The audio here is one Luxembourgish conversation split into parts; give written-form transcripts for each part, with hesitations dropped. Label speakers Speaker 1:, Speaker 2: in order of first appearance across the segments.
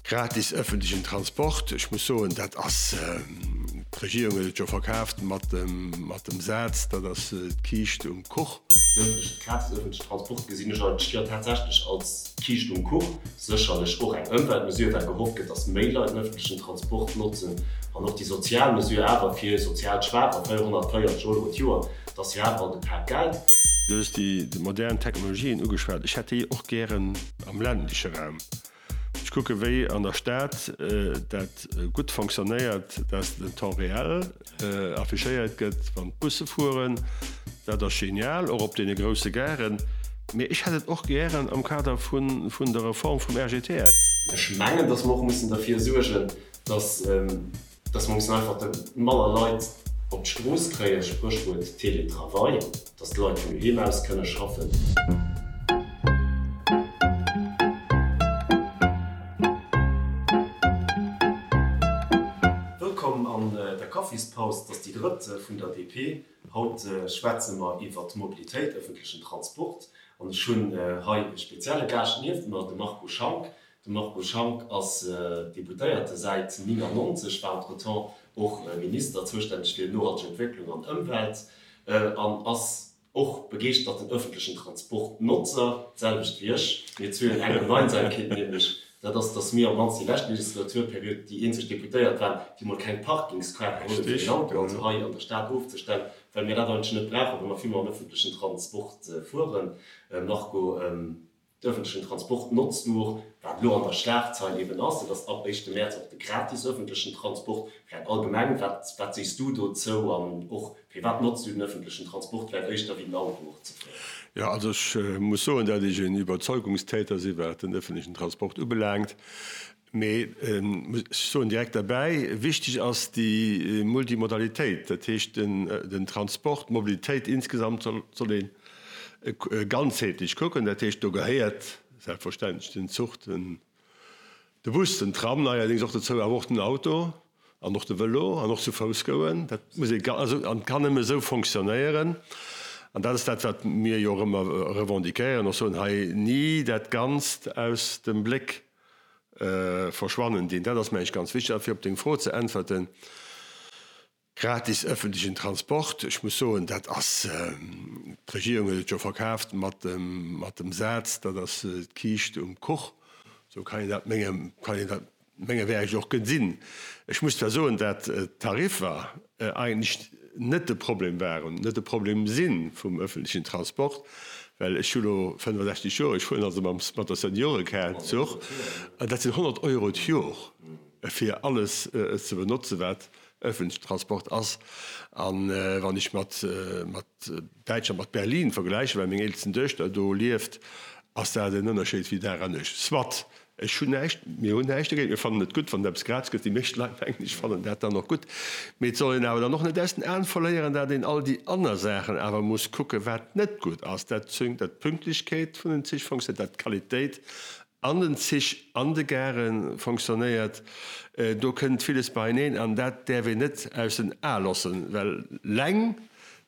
Speaker 1: Gratis ëffentlechen Transport, ech muss soen, dat ass, d'Regierung huet et jo verkaaft mat dem, mat dem Saz, dat ass d'Kiischt um Kuch.
Speaker 2: De gratis ëffentlechen Transport gesinn ech eigentlech jo tatsächlech als d'Kiischt um Kuch. Sécherlech och eng Ëmweltmesure, well gehofft gëtt, datt méi Leit den ëffentlechen Transport notzen. An och déi sozial Mesure awer fir sozial Schwaacher, 440 Euro d'Joer, dat ass jo awer alt e Pak Geld.
Speaker 1: Du hues déi modern Technologien ugeschwat. Ech hätt déi och gären am ländleche Raum. Ech kucke wéi an der Stad dat gutt fonctionnéiert, dass den Temps réel affichéiert gëtt, wann d'Busse fueren. Dat ass genial, och op deene grousse Garen. Mee ech hätt et och gären am Kader vun der Reform vum RGTR.
Speaker 2: Ech mengen, dass mer och mussen derfir suergen, dass Dass mer mussen einfach manner Leit op d'Strooss kréien, Spréchwuert Télétravail, dass d'Leit vun doheem aus kënne schaffen. Wëllkomm an der Kaffispaus, et ass déi drëtt vun der DP. Haut schwätze mer iwwer d'Mobilitéit, ëffentlechen Transport, an ech hunn hei e spezielle Gaascht nieft mer, de Marco Schank. De Marco Schank ass Deputéierte säit 99, war entretemps och Minister, zoustänneg fir nohalteg Entwécklung an Ëmwelt an ass och begeeschterten ëffentlechen Transportnotzer, d'selwecht wéi ech. Mir zwee hunn eng Gemeinsamkeet, nämlech dat ass, datt mir op d'mannst déi lescht Legislaturperiod déi eenzeg Deputéiert waren, déi mol keng Parkingskaart geholl hunn, fir den Auto also hei an der Stad ofzestellen, well mir dat eigentlech net brauchen, well mer vill mam ëffentlechen Transport fueren. Marco. D'ëffentlechen Transport notzt du och, wat elo an der Schlagzeil eben ass, dat ass ab éischte Mäerz och de gratis ëffentlechen Transport. Vläicht allgemeng, wat, wat sees du dozou an och firwat notzt du den ëffentlechen Transport vläicht éischter wéi den Auto och ze fueren?
Speaker 1: Jo, also ech muss soen, dat ech en Iwwerzeugungstäter si wat den ëffentlechen Transport ubelaangt. Mee ech soen direkt derbäi, wichteg ass déi Multimodalitéit, dat heescht den Transport, d'Mobilitéit insgesamt soll ee ganzheetlech kucken. Dat heescht, do gehéiert selbstverständlech den Zuch, de Bus, den Tram neierdéngs och dozou, awer och den Auto an och de Vëlo an och zu Fouss goen. Dat muss ee, also an kann nëmme esou fonctionnéieren. An dat ass dat, wat mir jo och ëmmer revendiquéieren, och soen, hei ni dat Ganzt aus dem Bléck verschwannen dinn. Dat ass, meng ech, ganz wichteg. A fir op deng Fro ze äntwerten, gratis ëffentlechen Transport, ech muss soen, dat ass, d'Regierung huet et jo verkaaft mat dem, mat dem Saz, dat ass d'Kiischt um Kuch. Esou kann een dat menge, kann een dat mengerwäereg och gesinn. Ech muss zwar soen, dat d'Tariffer eigentlech net de Problem waren, net de Problem si vum öffentlichen Transport, well ech hu lo 65 Joer, ech fueren also mam, mat der Seniorekaart Zuch, an dat sinn 100 Euro d'Jor fir alles ze benotzen, wat öffentlichen Transport ass. A wann ech mat, mat Däitschland, mat Berlin vergläichen, well meng eelsten Duechter do lieft, ass dat en Ënnerscheed wéi Dag an Nuecht. Soit, Ech hunn näischt, mir hunn näischt dogéint, mir fannen et gutt, wann et eppes gratis gëtt. Déi meescht Leit, mengen ech, fannen dat dann och gutt. Mee et soll een awer dann och net aus den Aen verléieren, dat een all déi aner Saachen awer muss kucken, wat net gutt ass. Dat dat d'Pünktlechkeet vun den Zich fonctionnéiert, dat d'Qualitéit an den Zich, an de Gare fonctionnéiert. Do kënnt villes beieneen an dat däerf een net aus den Ae loossen, well leng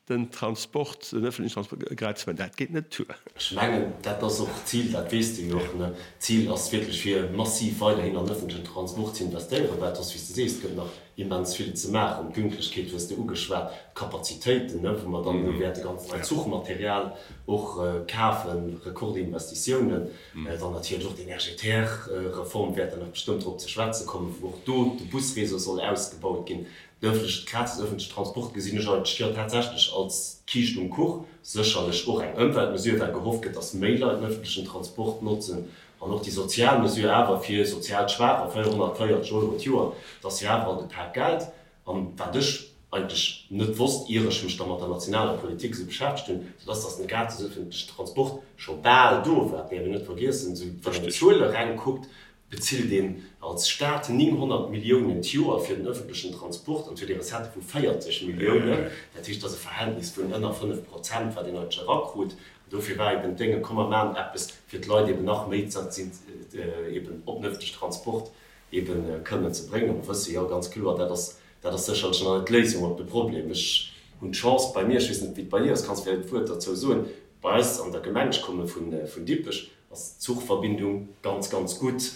Speaker 1: Den Transport, den öffentlichen Transport gratis maachen, dat geet net duer.
Speaker 2: Ech mengen, dat ass och d'Zil, dat weess de jo och, ne? D'Zil ass wierklech, fir massiv weiderhin an öffentlichen Transport ze investéieren, well et ass, wéi s de sees, et gëtt nach immens vill ze maachen. D'Pünktlechkeet hues de ugeschwat, d'Kapazitéiten, ne, wou mer dann elo wäerte ganz neit Zuchmaterial och kafen, Rekordinvestitiounen, dann natierlech och d'RGTR-Reform wäert der nach bestëmmt drop ze schwätze kommen, wou och do de Busréseau soll ausgebaut ginn. De ëffentlechen, gratis ëffentlechen Transport gesinn ech eigentlech jo tatsächlech als d'Kiischt um Kuch. Sécherlech och eng Ëmweltmesure, well gehofft gëtt, datt méi Leit den ëffentlechen Transport notzen. An och déi sozial Mesure awer fir sozial Schwaacher, 440 Euro d'Joer, dat ass jo awer alt e Pak Geld. An wat ech eigentlech net wosst, ier ech mech da mat der nationaler Politik esou beschäftegt hunn, dat ass, datt den gratis ëffentlechen Transport scho bal do war. Dat däerf een net vergiessen. Esou wann een d'Zuele reng kuckt, bezilt een als Staat 900 Milliounen d'Joer fir den öffentlechen Transport an et huet ee Recettë vu 40 Milliounen. Dat heescht, dat ass e Verhältnis vun ënner 5 Prozent, wat een eigentlech erakrut. An dofir war eben d'Dénge, komm mer maachen eppes, fir d'Leit eben nach méi eben op den öffentlechen Transport eben kënnen ze bréngen. Mer wësse jo ganz kloer, dat ass, dat ass sécherlech nach net d'Léisung op de Problem. Ech hunn d'Chance bei mir, ech weess net, wéi et bei dir ass, kanns vläicht e Wuert derzou soen, bei eis an der Gemeng, ech komme vun Dippech. Ass d'Zuchverbindung ganz, ganz gutt.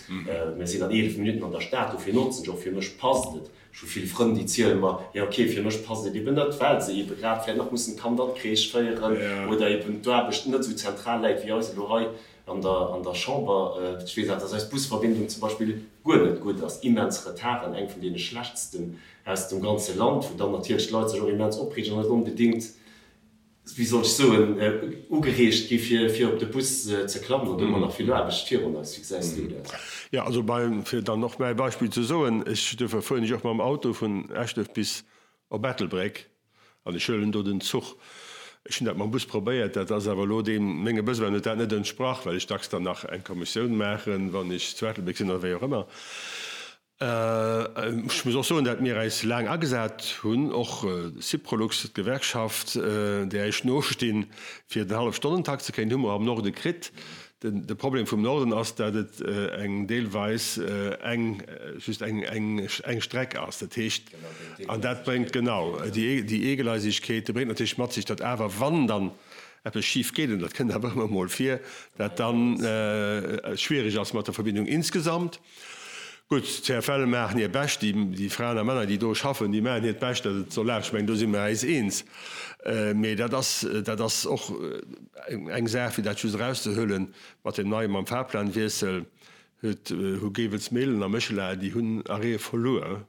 Speaker 2: Mir sinn an 11 Minutten an der Stad, dofir notzen ech och. Fir mech passt et. Ech hu vill Frënn, déi ziele mer, jo ok, fir mech passt et eben net, well se ebe grad vläicht nach mussen d'Kand an d'Crèche féieren oder eben d'Aarbecht net esou zentral läit wéi eis elo hei an der an der Chamber. Ech weess awer, dass eis Busverbindung zum Beispill guer net gutt ass, immens Retarden, eng vun deene schlechtsten aus dem ganze Land, wou dann natierlech d'Leit sech och immens opreegen an net onbedéngt wéi soll ech soen, ugereegt gi fir fir op de Bus ze klammen. An do hu mer nach vill Aarbecht virun eis. Wéi gesäis du dat?
Speaker 1: Jo, also bei, fir dann och mäi Beispill ze soen, ech, duerfir fueren ech och mam Auto vun Eschduerf bis op Ettelbréck an ech huelen do den Zuch. Ech hunn dat mam Bus probéiert, dat ass awer elo deem, menge Besoinen huet dat net entsprach, well ech dacks dann nach eng Kommissioun maachen, wann ech zu Ettelbréck sinn oder wéi och ëmmer. Ech muss och soen, dat mir äis laang agesat hunn, och Syprolux, d'Gewerkschaft, där ech nostinn, fir den Hallefstonnentakt ze kréien, hu mer am Norde kritt. De Problem vum Norden ass, dat et eng deelweis eng, just eng, eng Streck ass. Dat heescht, an dat bréngt genau déi Eegleisigkeet, déi bréngt natierlech mat sech, datt awer, wann dann eppes schif geet, an dat kënnt awer ëmmer emol vir, dat dann schwierig ass mat der Verbindung insgesamt. Gutt, d'CFL maachen hir Bescht, déi Fraen a Männer, déi do schaffen, déi maachen hiert Bescht, datt et soll lafen. Ech mengen, do si mer äis eens. Mee dat ass, dat ass och eng Saach, fir dat just erauszehuelen, mat deem neie, mam Fahrplanwiessel huet, hu Gevelsmehlen a Méchela, déi hunn Arrêtë verluer.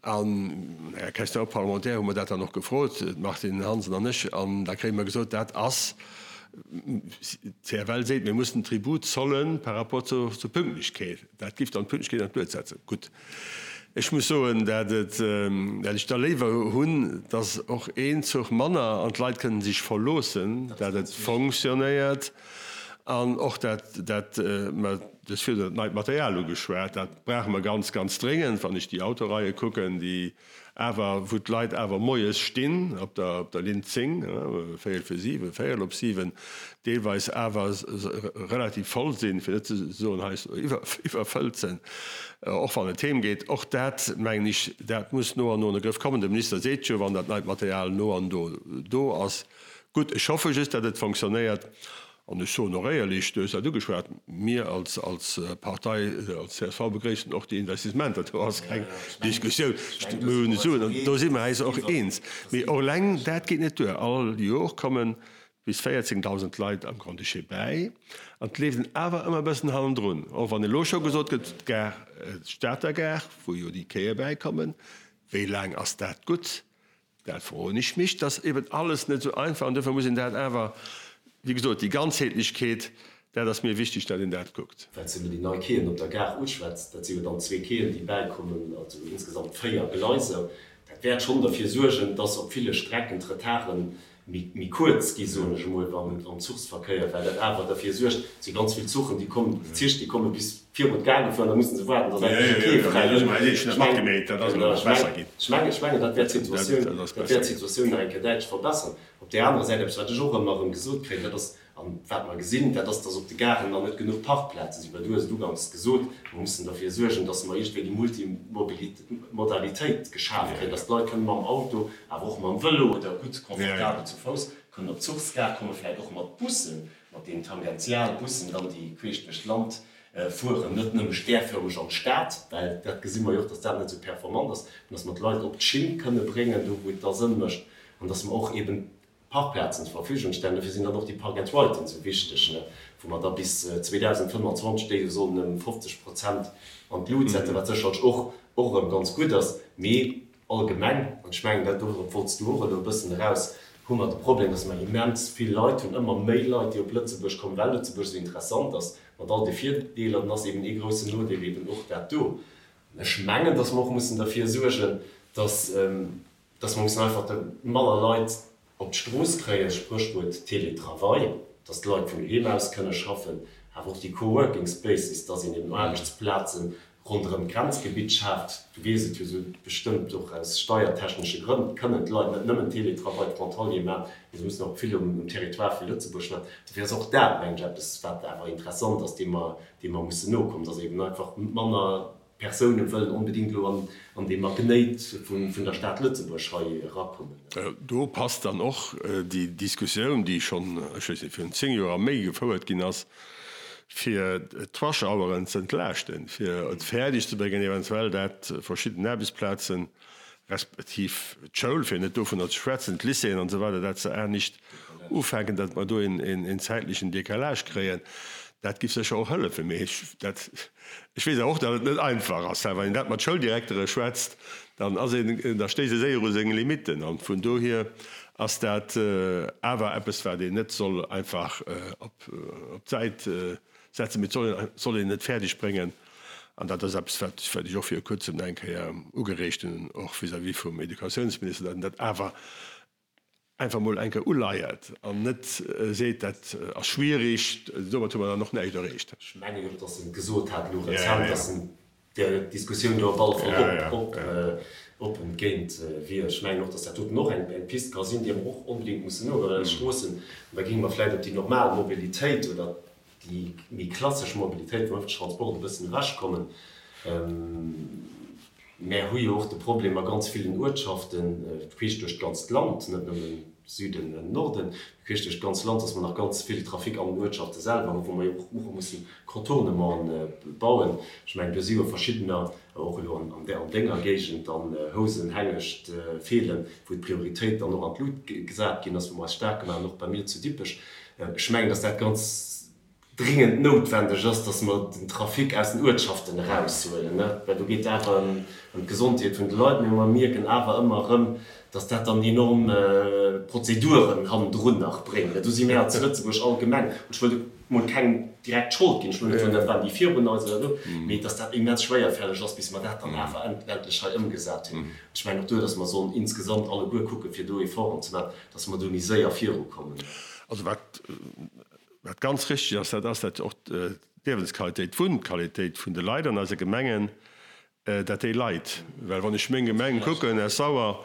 Speaker 1: An Här Questeur parlementaire hu mer dat dann och gefrot, d'Martine Hansen an ech, an da kréie mer gesot, dat ass, d'CFL seet, mir mussen Tribut zollen par rapport zur Pünktlechkeet. Dat giff dann d'Pünktlechkeet an d'Luet setzen. Gutt, ech muss soen, dat et, dat ech da léiwer hunn, dass och een Zuch manner an d'Leit kënnen sech verloossen, dat et fonctionnéiert an och dat, dat mer, Du hues virdrun dat neit Material ugeschwat. Dat brauche mer ganz, ganz dréngend, wann ech déi Autoreie kucken, déi awer, wou d'Leit awer moies stinn op der, op der Linn 10, véierel vir siwen, véierel op siwen, deelweis awer relativ voll sinn, fir net ze soen hei iwwerfëllt sinn, och wann et heem geet. Och dat, mengen ech, dat muss no an no an de Grëff kommen. De Minister seet jo, wann dat neit Material no an no do ass. Gutt, ech hoffe just, datt et fonctionnéiert. An ech soen och éierlech, du hues dat ugeschwat, mir als Partei, als csv begréissen och déi Investissementer. Do ass keng Diskussioun. Mir hunn Suen an do si mer äis och eens. Mee och eleng dat geet net duer. All Jor komme bis 14.000 Leit am Grand-Duché bäi an et leeft een awer ëmmer e bëssen hannendrun. Och wann elo scho gesot gëtt, d'Gare, d'Stater Gare, wou jo déi Quaië bäikommen, wéi laang ass dat gutt? Dat froen ech mech. Dat ass eben alles net esou einfach an duerfir muss een dat awer, wéi gesot, déi Ganzheetlechkeet, dat ass mir wichteg, datt een dat kuckt.
Speaker 2: Well s de elo déi nei Quaien op der Gare uschwätz, dat si jo dann zwee Quaien, déi bäikommen, also insgesamt véier Gleiser. Dat wäert schonn derfir suergen, dass op ville Strecken d'Retarden méi kuerz gi, soen ech emol, am Zuchsverkéier, well dat awer derfir suergt, et si ganz vill Zuchen, déi kommen, déi Zich, déi komme bis virun d'Gare gefuer an da musse se waarden, datt endlech e Quai fräi gëtt. Ech mengen, ech mengen, dat wäert d'Situatioun, dat wäert d'Situatioun nach eng Kéier däitlech verbessern. Op där anerer Säit, eppes, wat ech och ëmmer erëm gesot kréien, dat ass, An wat mer gesinn, dat ass, dass op de Garen nach net genuch Parkplaze sinn. Well du hues et uganks gesot, mer mussen derfir suergen, dass mer iergendwéi déi Multimodalitéit geschaf kréien, dass d'Leit kënnen mam Auto, awer och mam Vëlo oder gutt confortabel zu Fouss kënnen op d'Zuchsgare kommen, vläicht och mat Bussen, mat deenen Tangentialbussen dann, déi queesch duerch d'Land fueren, net nëmme stärförmeg an d'Stad, well dat gesi mer jo och, dass dat net esou performant ass, mä dass mer d'Leit op d'Schinn kënne bréngen, do wou et da Sënn mécht, an dass mer och eben Parkplazen zur Verfügung stellen. Dofir sinn dann och déi Park and Riden esou wichteg, wou mer da bis 2025 déi jo sollen ëm 50 Prozent an d'Lut setzen, wat sécherlech och och erëm ganz gutt ass. Mee allgemeng, an ech mengen, dat dorop wollts du och elo e bëssen eraus, hu mer de Problem, dass mer immens vill Leit hunn, ëmmer méi Leit, déi op Lëtzebuerg kommen, well Lëtzebuerg esou interessant ass, mat all de Virdeeler. Dann ass eben ee groussen Nodeel eben och dat do. An ech mengen, dass mer och mussen derfir suergen, dass, dass mer mussen einfach manner Leit op d'Strooss kréien, Spréchwuert Télétravail, dass d'Leit vun doheem aus kënne schaffen, awer och déi Coworking Spaces, dass een eben Aarbechtsplaze ronderëm d'Grenzgebitt schaaft. Du weess et jo esou bestëmmt, och aus steiertechnesche Grënn kënnen d'Leit net nëmmen Télétravail frontalier maachen, mee se mussen och vill um Territoire vu Lëtzebuerg maachen. Dofir ass och dat, mengen ech, eppes, wat awer interessant ass, deem mer, deem mer mussen nokommen, dass eben einfach manner Persoune wëllen onbedingt elo an dee Magnéit vun der Stad Lëtzebuerg hei erakommen.
Speaker 1: Do passt dann och déi Diskussioun, déi schonn, ech weess net, virun 10 Joer a méi gefouert ginn ass. fir d'Rush-Hour'en ze entlaaschten, fir et fäerdeg ze bréngen, eventuell dat verschidden Aarbechtsplazen, respektiv d'Schoul, fir net dovunner ze schwätzen, d'Lycéeën an esou weider, dat se anescht ufänken, datt mer do een zäitlechen Décalage kréien, dat giff sécher och hëllefen. Mee ech, dat, ech weess awer och, datt et net einfach ass. Wann een dat mat Schouldirektere schwätzt, dann ass een, da stéisst ee séier u seng Limitten. An vun dohier ass dat awer eppes, wat een net soll einfach op d'Säit setzen, mee et soll een et fäerdeg bréngen. An dat ass eppes, wat ech och viru Kuerzem nach eng Kéier ugereegt hunn, och vis-à-vis vum Educatiounsminister, datt een dat awer einfach mol eng Kéier uleiert an net seet, dat ass schwierig, domat hu mer dann och näischt erreecht.
Speaker 2: Ech mengen och, datt en gesot hat elo rezent, datt en där Diskussioun do op alle Fall oppen géint wier. Ech mengen och, datt dat doten och eng Pist ka sinn, déi mer och onbedéngt mussen nogoen, well Stroossen, an da géinge mer vläicht op déi normal Mobilitéit oder déi méi klassesch Mobilitéit vum ëffentlechen Transport e bëssen ewechkommen. Mär hu jo och de Problem a ganz villen Uertschaften, queesch duerch d'ganzt Land, net nëmmen Süden an Norden, mee queesch duerch d'ganzt Land, dass mer nach ganz vill Trafic an den Uertschafte selwer hunn, wou mer jo och mussen Contournementen bauen. Ech mengen, do si jo verschiddener, och elo an denger Géigend dann, Housen, Hengescht, Feelen, wou d'Prioritéit dann och an d'Lut gesat ginn ass, wou mer eis staark gemaach hunn, och bei mir zu Dippech. Ech mengen, dass dat ganz dringend noutwendeg ass, dass mer den Trafic aus den Uertschaften eraushuelen, well do geet et awer ëm d'Gesondheet vun de Leit. Mee mer mierken awer ëmmer erëm, dass dat dann enorm Prozeduren hannendrun nach bréngt. Do si mir zu Lëtzebuerg allgemeng, an ech wëll do mol kengem direkt d'Schold ginn, ech wëll net soen, dat waren déi virun eis oder esou, mee dass dat immens schwéierfälleg ass, bis mer dat dann awer endlech hei ëmgesat hunn. Ech mengen och do, dass mer sollen insgesamt alleguer kucken, fir do Efforten ze maachen, dass mer do méi séier virukommen.
Speaker 1: Also wat Wat ganz richtig ass, dat ass, dat och d'Liewensqualitéit, d'Wunnqualitéit vun de Leit an eise Gemengen, dat déi leit. Well wann ech meng Gemeng kucken, Esch-Sauer,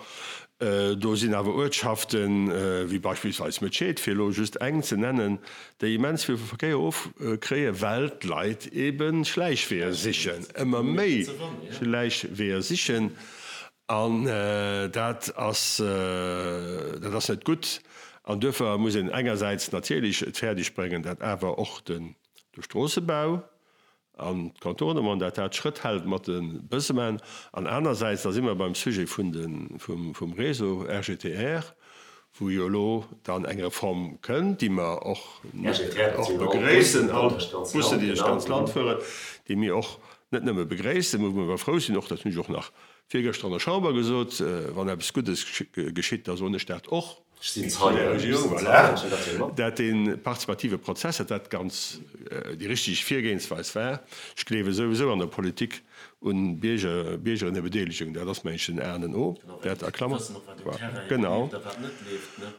Speaker 1: do sinn awer Uertschaften, wéi beispillsweis Mëtscheed, fir elo just eng ze nennen, déi immens vill vum Verkéier ofkréien, well d'Leit ebe Schläichweeër sichen, ëmmer méi Schläichweeër sichen. An dat ass, dat ass net gutt. An duerfir muss een engersäits natierlech et fäerdeg bréngen, dat awer och de Stroossebau an d'Contournement, dat dat Schrëtt hält mat de Besoinen. An anersäits, da si mer beim Sujet vun de, vum Réseau RGTR, wou jo elo dann eng Reform kënnt, déi mer och begréissen, all d'Bussen, déi duerch d'ganz Land fueren, déi mir och net nëmme begréissen, wou mer frou sinn, och dat hunn ech och nach Virgëschter an der Chamber gesot, wann eppes Guddes geschitt, da soen ech dat och.
Speaker 2: Ech sinn Zeien, ech sinn Zeien, ech hunn dat jo mat.
Speaker 1: Dat dee partizipative Prozess, dat dat ganz déi richteg Virgehensweis war. Ech gleewe souwisou an der Politik un Bierger, Biergerinnebedeelegung, dat ass mengen ech den A an den O, dat a Klammer. Genau.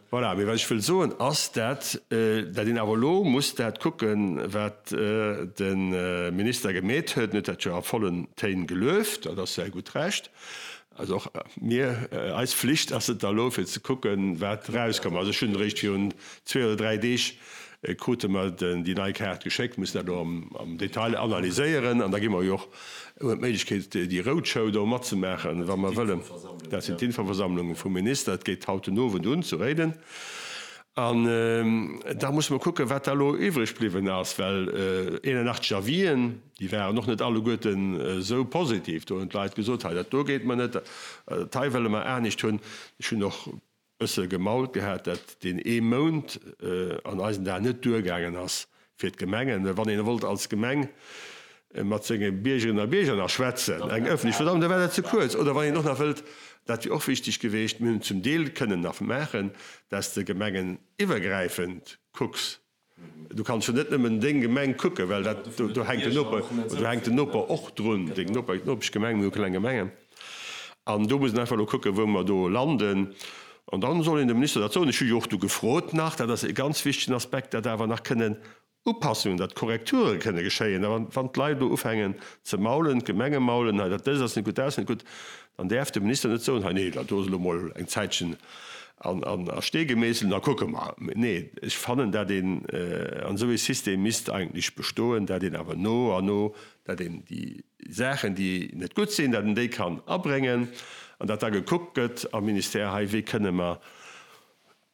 Speaker 1: Voilà, mee wat ech wëll soen ass, dat dat een awer elo muss dat kucken, wat de Minister gemeet huet. En huet dat jo a vollen Téin gelueft, dat ass säi gutt Recht. Also och mir, eis Flicht ass et da elo fir ze kucken, wat erauskomm ass. Ech hunn eréischt virun zwee oder dräi Deeg krute mer déi nei Kaart geschéckt, mussen dat elo am Detail analyséieren an da gi mer jo och d'Méiglechkeet, déi Roadshow do matzemaachen, wa mer wëllen. Dat sinn d'Infoversammlunge vum Minister. Dat geet haut den Owend un zu Réiden. An da musse mer kucken, wat da elo iwwreg bliwwen ass, well 81 Avisen, déi waren och net alleguerten esou positiv. Do hunn d'Leit gesot, hei dat do geet mer net, dat hei wëlle mer anescht hunn. Ech hunn och bësse gemault gehat, dat deen ee Mount an eisen Aen net duergaangen ass fir d'Gemengen. Well wann een wollt als Gemeng mat senge Biergerinnen a Bierger nach schwätzen, eng öffentlech Versammlung, da war dat ze kuerz. Oder wann een och nach wëllt, dat wier och wichteg geweecht, mir hunn et zum Deel kënnen nach maachen, dass de gemengeniwwergräifend kucks, Du kanns jo net nëmmen deng Gemeng kucken, well dat, do hänkt den Noper, do hänkt den Noper och drun, deng Noper, Nopeschgemeng, mir hu kleng Gemengen. An do muss een einfach elo kucken, wou mer do landen. An dann soll een dem Minister dat soen. Ech hu jo och du gefrot nach, dat ass e ganz wichtegen Aspekt, dat awer nach kënnen Upassungen, datt Korrekture kënne geschéien. A wann d'Leit elo ufängen ze maulen, d'Gemenge maulen, hei dat dëst ass net gutt, dat ass net gutt, dann däerf de Minister net soen, hei nee, dat do ass elo mol eng Zäitchen an a Stee gemeesselt, da kucke mer. Nee, ech fannen, dat een an esou ee System misst eigentlech bestoen, dat een awer no an no, dat een déi Saachen, déi net gutt sinn, dat een déi kann abréngen an dat da gekuckt gëtt am Ministère, hei wéi kënne mer.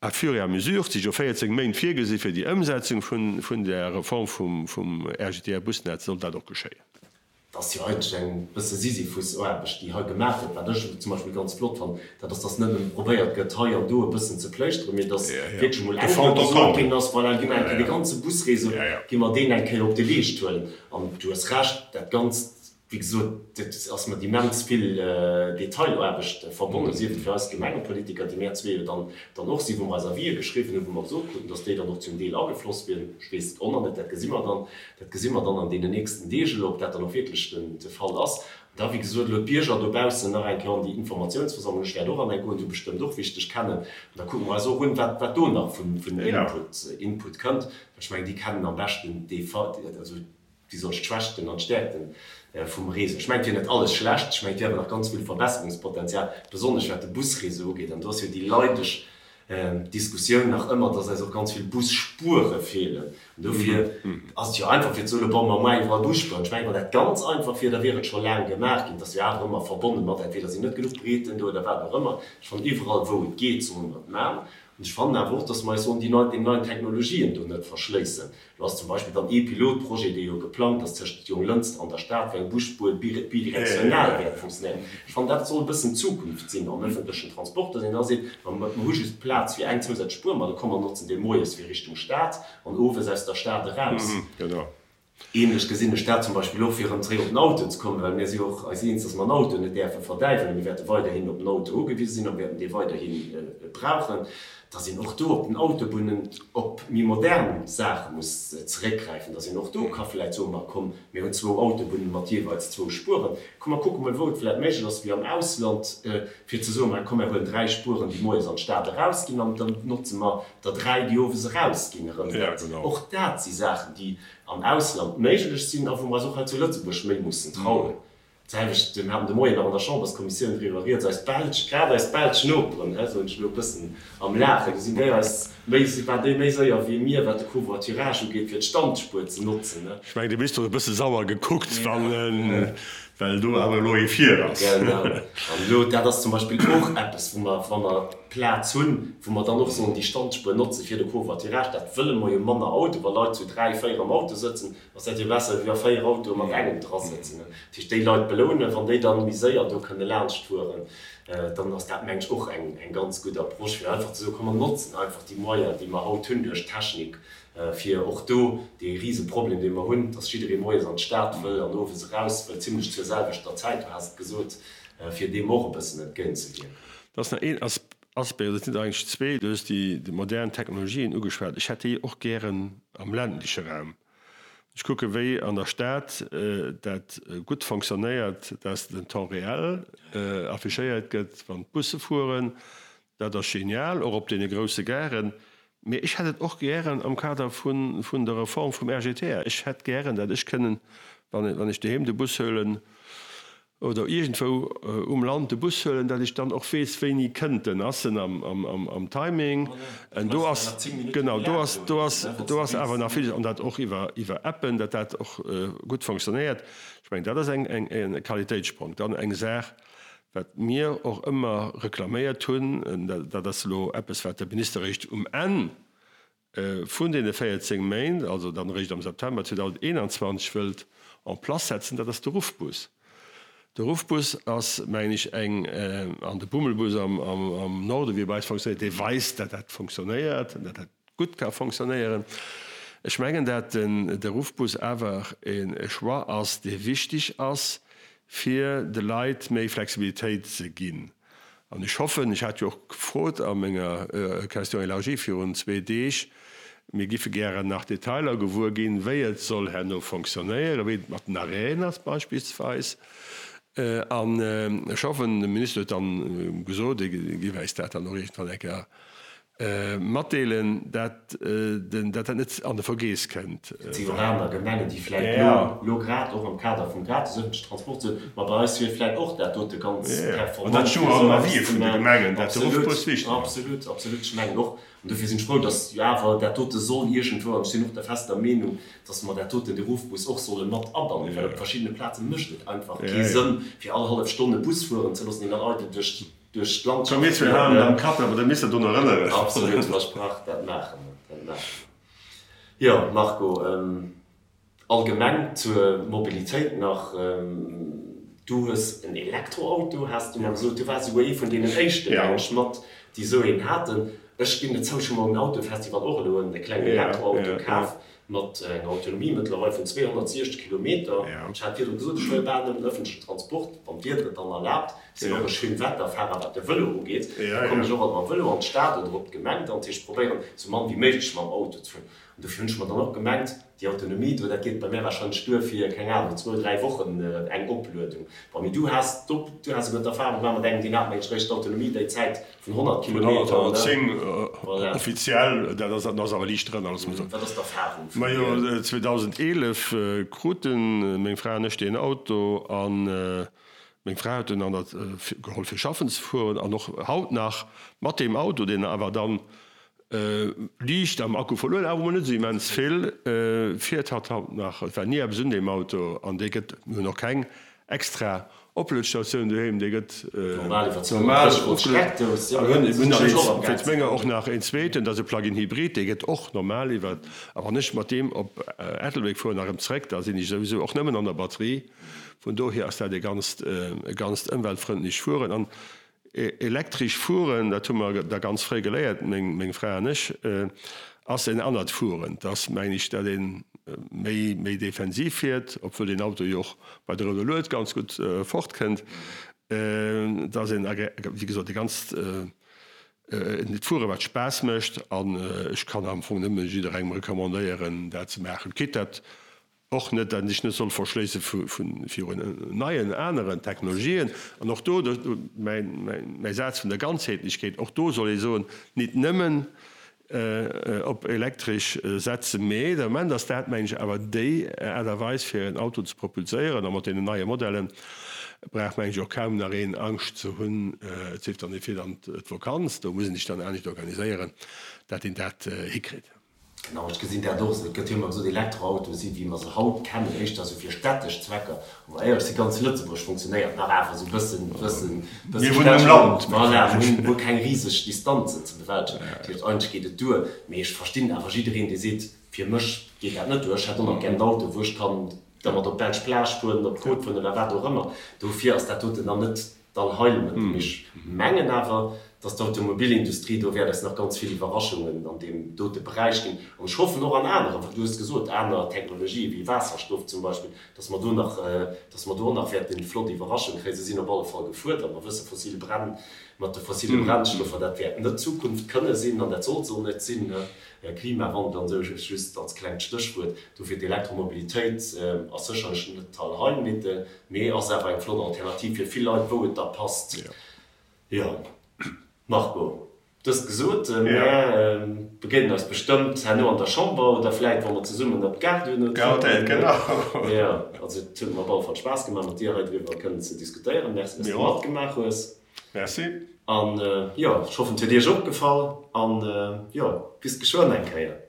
Speaker 1: À fur et à mesure, et si jo 14 Méint virgesi fir déi Ëmsetzung vun där Reform vum RGTR-Busnetz, soll dat och geschéien.
Speaker 2: Et ass jo eigentlech eng bësse Sisyphus-Aarbecht, déi hei gemaach gëtt. Wat ech zum Beispill ganz flott fannen, dat ass, dass net nëmme probéiert gëtt, hei an do e bëssen ze pléischteren, mee dass wierklech emol eng Kéier gesot ginn ass, Voilà, gi mer eng Kéier dee ganze Busréseau, gi mer deen eng Kéier op de Leescht huelen. An du hues Recht, dat Ganzt, wéi gesot, dat ass mat immens vill Detailaarbecht verbonnen, sief et fir eis Gemengepolitiker, déi mär zwee jo dann dann och sinn, wou mer eis Avisë geschriwwen hunn, wou mer gesot kruten, dass déi dann och zum Deel agefloss wieren. Ech weess et och nach net, dat gesi mer dann, dat gesi mer dann an deenen nächsten Deeg elo, ob dat dann och wierklech den de Fall ass. An da, wéi gesot, elo d'Bierger dobaussen nach eng Kéier an déi Informatiounsversammlung, ech wäert och an eng goen, du bestëmmt och, wéi ech dech kennen, an da kucke mer eis och un, wat wat do nach vun vun Input Input kënnt, well ech mengen, déi kennen am beschten dee Fall, also Wéi soll ech d'Schwächten an d'Stäerkten vum Réseau? Ech mengen, et wier net alles schlecht, ech mengen, et wier awer nach ganz vill Verbesserungspotenzial, besonnesch wat de Busréseau ugeet. An do ass jo déi leideg Diskussioun nach ëmmer, dass eis och ganz vill Busspuere feelen. An dofir ass et jo einfach fir ze soen, bon, mer maachen iwwerall Busspueren. Ech mengen, wann dat ganz einfach wier, da wier et scho laang gemaach ginn. Et ass jo awer ëmmer verbonne mat, entweder sinn net genuch Breeten do oder wat och ëmmer. Ech fannen, iwwerall wou et geet, solle mer et maachen. An ech fannen awer och, dass mer eis sollen déi nei, den neien Technologien do net verschléissen. Do ass zum Beispill dann ee Pilotprojet, dee jo geplangt ass tëscht Jonglënster an der Stad, wou eng Busspuer bidirektional wäert funktionéieren. Ech fannen, dat soll e bëssen d'Zukunft sinn am ëffentlechen Transport, dass een da seet, ma mer hu just Plaz fir eng zousätzlech Spuer, ma da komm mer notzen déi moies fir Richtung Stad an owes aus der Stad eraus. Ähnlech gesinn ech dat zum Beispill och, fir erëm zréck op den Auto ze kommen, well mir si jo och eis eens, dass mer den Auto net däerfe verdäiwelen. Mir wäerte weiderhin op den Auto ugewise sinn a mir wäerten dee weiderhi brauchen. Dass een och do op den Autobunnen op méi modern Saache muss zeréckgräifen, dass een och do ka vläicht soen, ma komm, mir hunn zwou Autobunnen mat jeeweils zwou Spueren, komm mer kucke mol wou et vläicht méiglech ass, wéi am Ausland, fir ze soen, ma komm mer huelen dräi Spueren, déi moies an d'Stad erausginn an dann notze mer der dräi, déi owes erausginn erëm. Dat, och dat si Saachen, déi am Ausland méiglech sinn a wou mer eis och hei zu Lëtzebuerg méi mussen trauen. D'selwecht, mir haten de Moien nach an der Chamberskommissioun driwwer rieds, eis belsch, grad eis belsch Noperen, hä, soen ech elo e bëssen am Laachen, do sinn déi eis méi, waren déi méi séier wéi mir, wat de Covoiturage ugeet, fir d'Standspuer ze notzen, ne.
Speaker 1: Ech mengen, de Minister huet e bësse sauer gekuckt, wann en, well do awer elo ee vir ass.
Speaker 2: Genau. An elo, dat ass zum Beispill och eppes, wou mer, wa mer Plaz hunn, wou mer dann och sollen déi Standspuer notze fir de Covoiturage. Dat wëlle mer jo, manner Auto, wa Leit zu dräi, véier am Auto sëtzen, Ass dat jo besser wéi wa 4 Autoe mat engem dra sëtzen. Dat heescht déi Leit belounen, wann déi dann méi séier do kënne laanscht fueren, dann ass dat meng ech och eng ganz gutt Approche fir einfach ze soen, komm mer notzen einfach déi Moyen déi mer haut hunn duerch d'Technik fir och do dee Riseproblem dee mer hunn, dass jidderee moies an d'Stad wëll an owes eraus wëll, zimlech zur selwechter Zäit, du has et gesot, fir deem och e bëssen entgéintzewierken.
Speaker 1: Da ass nach een Aspect, oder et sinn der eigentlech zwee, du hues déi modern Technologien ugeschwat, ech hätt déi och gären am ländleche Raum. Ech kucke wéi an der Stad dat gutt fonctionnéiert, dass den Temps réel affichéiert gëtt, wann d'Busse fueren. Dat ass genial, och op deene grousse Garen. Mee ech hätt et och gären am Kader vun der Reform vum RGTR. Ech hätt gären, dat ech kënnen, wann ech doheem de Bus huelen, oder iergendwou um Land de Bus huelen, dat ech dann och weess, wéini kënnt en, ass en am Timing, en do ass, genau, do ass, do ass, do ass awer nach villes, an dat och iwwer, iwwer Appen, dat dat och gutt fonctionnéiert. Ech mengen, dat ass eng, eng, e Qualitéitssprong. Dann eng Saach, wat mir och ëmmer reklaméiert hunn, dat ass elo eppes, wat de Minister eréischt um Enn vun deene 14 Méint, also dann eréischt am September 2021, wëllt en place setzen, dat ass de Ruffbus. De Ruffbus ass, mengen ech, eng, an de Bummelbus am Norden, wéi e bei eis fonctionnéiert, dee weist, dat dat fonctionnéiert an dat dat gutt ka fonctionnéieren. Ech mengen, dat de Ruffbus awer e Choix ass, dee wichtig ass, fir de Leit méi Flexibilitéit ze ginn. An ech hoffen, ech hat jo och gefrot a menger Question élargie virun zwee Deeg, mir giffe gären nach Detailer gewuer ginn, wéi et soll herno fonctionnéieren, wéi et mat den Arrêten ass beispillsweis. An ech hoffen, de Minister huet dann gesot, e géif äis dat dann och iergendwann eng Kéier Matdeelen, dat dat net an de Vergeess kënnt.
Speaker 2: Et si jo och aner Gemengen, déi vläicht elo, elo grad och am Kader vum gratis ëffentlechen Transport soen, ma bei eis wier vläicht och dat dote ganz
Speaker 1: performant fir esou eppes ze maachen.
Speaker 2: Absolut, absolut, absolut. Ech mengen och, an dofir sinn ech frou, datt jo awer dat dote soll iergendwou, an ech sinn och der fester Meenung, datt mer dat doten, de Ruffbus och solle mat abannen, well op verschiddene Plaze mécht et einfach kee Sënn, fir all hallef Stonn e Bus fueren ze loossen, deen dann eidel duerch. Duerch d'Land
Speaker 1: Komm mir zwee halen dann Kapp, awer da misst der drun erënneren.
Speaker 2: Absolut, versprach, dat maache mer, dat maache mer. Jo, Marco, allgemeng zur Mobilitéit nach, Du hues en Elektroauto, has du mer gesot. Du waars esouguer ee vun deenen éischten, mengen ech, mat, déi esou een haten. Ech ginn et zou, ech hu mer um Autofestival och elo e klengen Elektroauto kaf. Mat enger Autonomie mëttlerweil vun 260 Kilometer. Ech hat virdru gesot, ech huele bal nëmmen ëffentlechen Transport, wann d'Wieder et dann erlaabt. Ech sinn och e Schönwetterfahrer, wat de Vëlo ugeet. Da kommen ech och alt mam Vëlo an d'Stad oder op d'Gemeng dann. Dat heescht, ech probéieren esou mann wéi méiglech mam Auto ze fueren. An dofir hunn ech mer dann och gemengt, déi Autonomie do, dat geet bei mär warscheinlech duer fir, keng Ahnung, zwou, dräi Wochen eng Opluedung. Bon, mee du has du has esouguer d'Erfahrung gemaach mat engem, deen hat mengen ech eréischt d'Autonomie déi Zäit Vun 100 Kilometer,
Speaker 1: ne? 110 offiziell, dat ass, dat ass awer liicht drënner, loosse mer soen.
Speaker 2: Wat ass d'Erfahrung
Speaker 1: vun dir? Majo, 2011 kruten meng Fra an ech deen Auto an meng Fra huet en an der geholl fir schaffen ze fueren an och haut nach mat deem Auto, deen awer dann Liicht am Akku verluer, awer mol net esou immens vill. Fiert hatt haut nach? Et war ni eppes un deem Auto an dee gëtt, mir hunn och keng extra Opluetstatioun doheem, dee gëtt
Speaker 2: normal opgeluet.
Speaker 1: A mir hunn nach een, wéinst menger och nach een zweeten, dat ass e Plug-in Hybrid, dee gëtt och normal iwwer, a wann ech mat deem op Ettelbréck fueren a rëm zréck, da sinn ech souwisou och nëmmen an der Batterie. Vun dohier ass dat e ganzt, e ganzt ëmweltfrëndlecht Fueren. An Elektresch fueren, dat hu mer da ganz fréi geléiert, meng Fra an ech, ass en anert Fueren. Et ass, mengen ech, dat ee méi, méi defensiv fiert, obwuel deen Auto jo och bei der rouder Lued ganz gutt fortkënnt. Et ass en, wéi gesot, e ganzt Fuere wat Spaass mécht an ech kann am Fong nëmme jidderengem recommandéieren, dat ze maachen. Quitte dat Och net, dat een sech net soll verschléisse virun neien, aneren Technologien. An och do, mäi Saz vun der Ganzheetlechkeet, och do soll ee soen, nit nëmmen op elektresch setzen, mee de Moment ass dat, mengen ech, awer déi Aart a Weis, fir en Auto ze propulséieren. A mat deenen neie Modellen brauch, mengen ech, och kaum nach een Angscht ze hunn, et sief dann, ee fiert an d'Vakanz, do muss een sech dann anescht organiséieren, dat een dat hikritt.
Speaker 2: Genau, ech gesinn dat och esou. Et gëtt jo ëmmer gesot, Elektroautoe si wéi mer se haut kennen, éischter esou fir städtesch Zwecker. Wa mer éierlech sinn, ganz Lëtzebuerg funktionéiert nach awer esou e bëssen, bëssen, bëssen
Speaker 1: Mir wunnen am Land.
Speaker 2: Voilà, mir hunn guer keng riseg Distanzen ze bewältegen. Dat heescht, eigentlech geet et duer. Mee ech verstinn awer jiddereen, dee seet, fir mech geet dat net duer, ech hätt och nach gär en Auto, wou ech kann dermat op d'belsch Plage fueren, op d'Côte fueren oder wat och ëmmer. Dofir ass dat doten dann net d'Allheilmëttel. Mee ech mengen awer, dass d'Automobilindustrie do wäert eis nach ganz vill Iwwerraschungen an deem dote Beräich ginn. An ech hoffen och an aneren, well du hues gesot, aner Technologië wéi Waasserstoff zum Beispill, dass mer do nach, dass mer do och nach wäerte flott Iwwerraschunge kréien. Se sinn op alle Fall gefuerdert. Mer wësse fossil Brenn, mat de fossile Brennstoffer, dat wäert net d'Zukunft kënne sinn an dat soll se och net sinn. Klimawandel an esou, just als klengt Stéchwuert. Dofir d'Elektromobilitéit ass sécherlech net d'Allheilmittel. Mee ass awer eng flott Alternativ fir vill Leit, wou et da passt. Jo, Marco, dëst gesot, mär begéinen eis bestëmmt herno an der Chamber oder vläit wa mer zesummen op d'Gare duerno
Speaker 1: trëppelen.
Speaker 2: Jo, also et huet mer op alle Fall Spaass gemaach mat dir hei driwwer kënnen ze diskutéieren. Merci, dass de matgemaach hues.
Speaker 1: Merci.
Speaker 2: An jo, ech hoffen et huet iech och gefall an jo, bis geschwënn eng Kéier.